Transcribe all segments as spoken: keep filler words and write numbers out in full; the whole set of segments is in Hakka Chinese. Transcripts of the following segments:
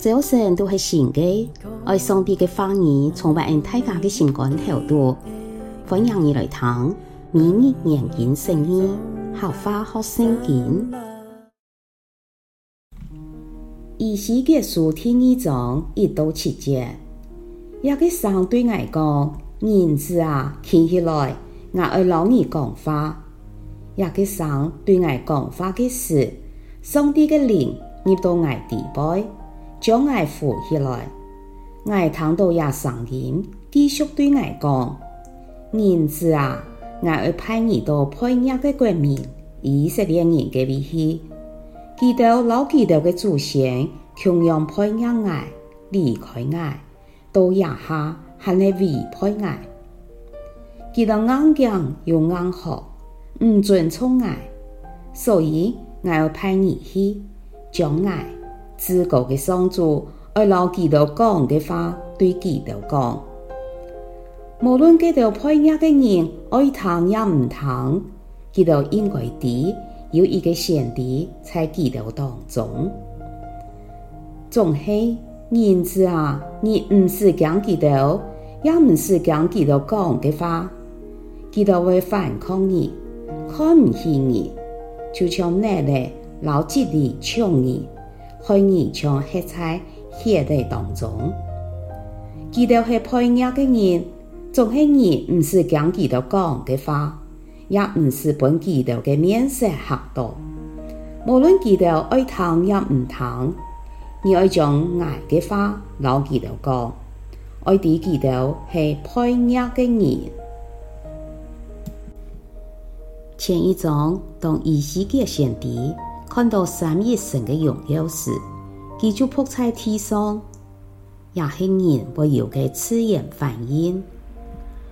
朝晨都係新个，愛上帝个話語充滿𠊎大家个心肝頭肚。歡迎你來聽每日研經釋義，客話學聖經。以西結書第二章一到七節，這个聲對𠊎講：人子啊，企起來，𠊎愛摎你講話。 這个聲對𠊎講話个時，上帝个靈入到𠊎裡背，將𠊎扶起來。𠊎聽到這聲音，繼續對𠊎講：人子啊，𠊎愛派你到背逆个國民，以色列人个位去。佢兜摎佢兜个祖先共樣背逆𠊎，離開𠊎， 到這下還係違背𠊎。佢兜硬頸又硬殼，毋尊重𠊎，所以𠊎愛派你去，將𠊎，至高个上主愛摎佢兜講个話對佢兜講。無論該兜背逆个人愛聽也毋聽， 佢兜應該知有一个先知在佢兜當中。總係，人子啊，你毋使驚佢兜，也毋使驚佢兜講个話。佢兜會反抗你，看毋起你，就像竻仔摎蒺藜搶你，害你像歇在血仔當中。佢兜係背逆个人，總係你毋使驚佢兜講个話， 也毋使分佢兜个面色嚇到。無論佢兜愛聽也毋聽，你愛將𠊎个話摎佢兜講，愛知佢兜係背逆个人。前一章，當以西結先知看到三一神个榮耀時，佢就仆在地上， 也係人會有个自然反應。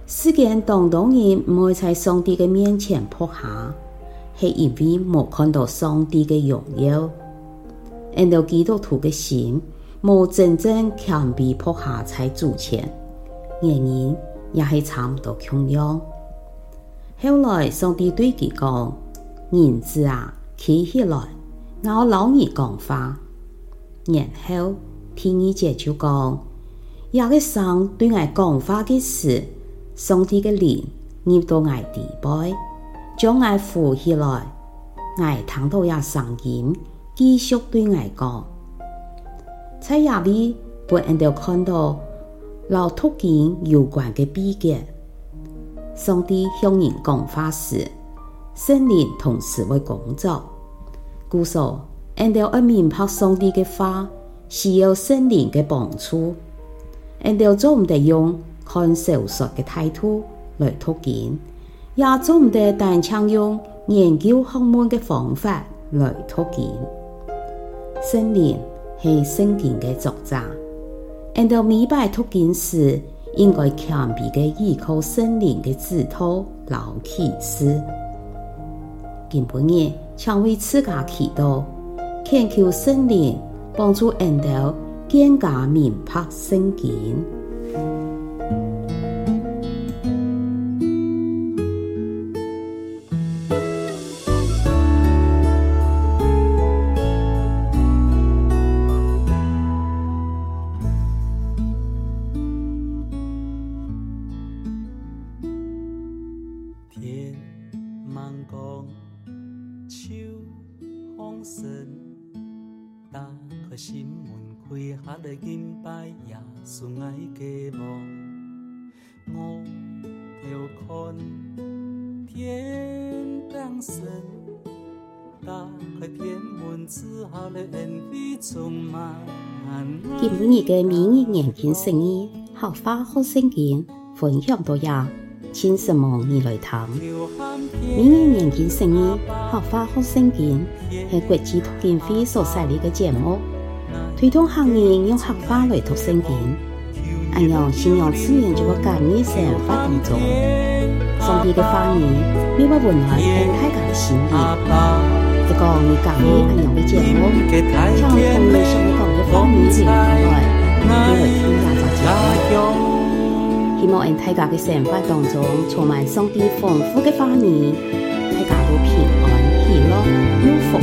世間當多人毋會在上帝个面前仆下，係因為無看到上帝个榮耀。𠊎兜基督徒个心無真正謙卑仆下在主前，原因也係差毋多共樣。 後來上帝對佢講：「人子啊，企起來，𠊎愛摎你講話。」然後第二節就講：「這个聲對𠊎講話个時，上帝个靈入到𠊎裡背，將𠊎扶起來。」𠊎聽到這聲音， 繼續對𠊎講。在這位分𠊎兜看到摎讀經有關个祕訣。上帝向人講話時，聖靈同時會工作。故所，𠊎兜愛明白上帝个話，需要聖靈个幫助。𠊎兜做毋得用看小說个態度來讀經， 也做毋得單淨用研究學問个方法來讀經。聖靈係聖經个作者，𠊎兜每擺讀經時，應該謙卑个依靠聖靈个指導摎啟示。今晡日，請為自家祈禱，懇求聖靈幫助𠊎兜更加明白聖經。 天吂光，秋風神，打開心門，跪下來敬拜耶穌，𠊎个王。 我要看天頂神，打開天門之後，來恩惠充滿。今晡日个每日研經釋義，客話學聖經，分享到這，請承蒙你來聽。每日研經釋義，客話學聖經，係國際讀經會所設立个節目，推動客人用客話來讀聖經。 恁樣，信仰自然就會加入生活當中。上帝个話語，乜會溫暖𠊎大家个心靈。如果你喜歡恁樣个節目，請同你想愛講个話語留言下來，𠊎會來聽這隻節目。希望𠊎大家个生活當中充滿上帝豐富个話語，大家都平安、喜樂、有福氣。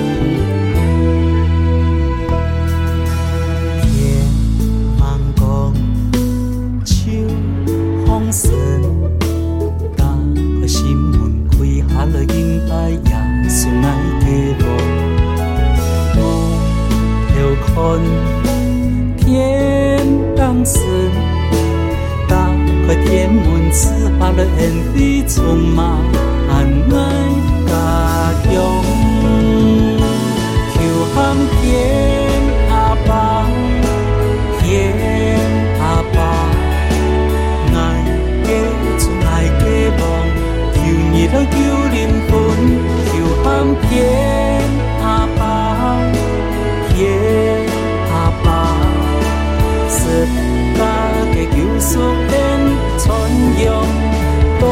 天充滿𠊎家鄉。求喊見阿爸，見阿爸，𠊎个主，𠊎个王，求你來救靈魂。求喊見阿爸，見阿爸，十架个救贖恩傳揚到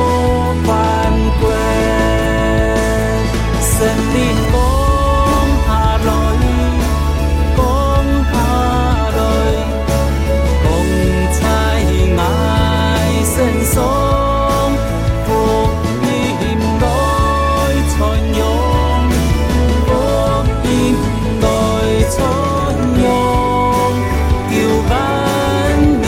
萬國。聖靈降下來，降下來，降在𠊎身上。 福音來傳揚，福音來傳揚，救萬民。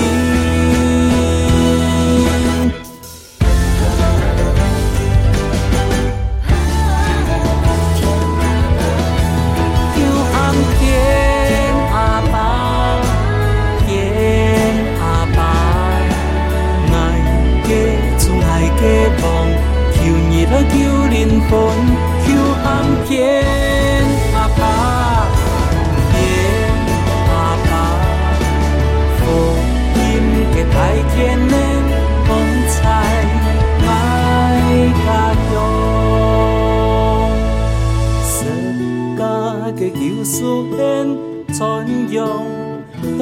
求喊見阿爸，見阿爸，𠊎个主，𠊎个王，求你來救靈魂。求喊見阿爸，見阿爸，福音个大權能，降在𠊎家鄉。十架个救贖恩，傳揚到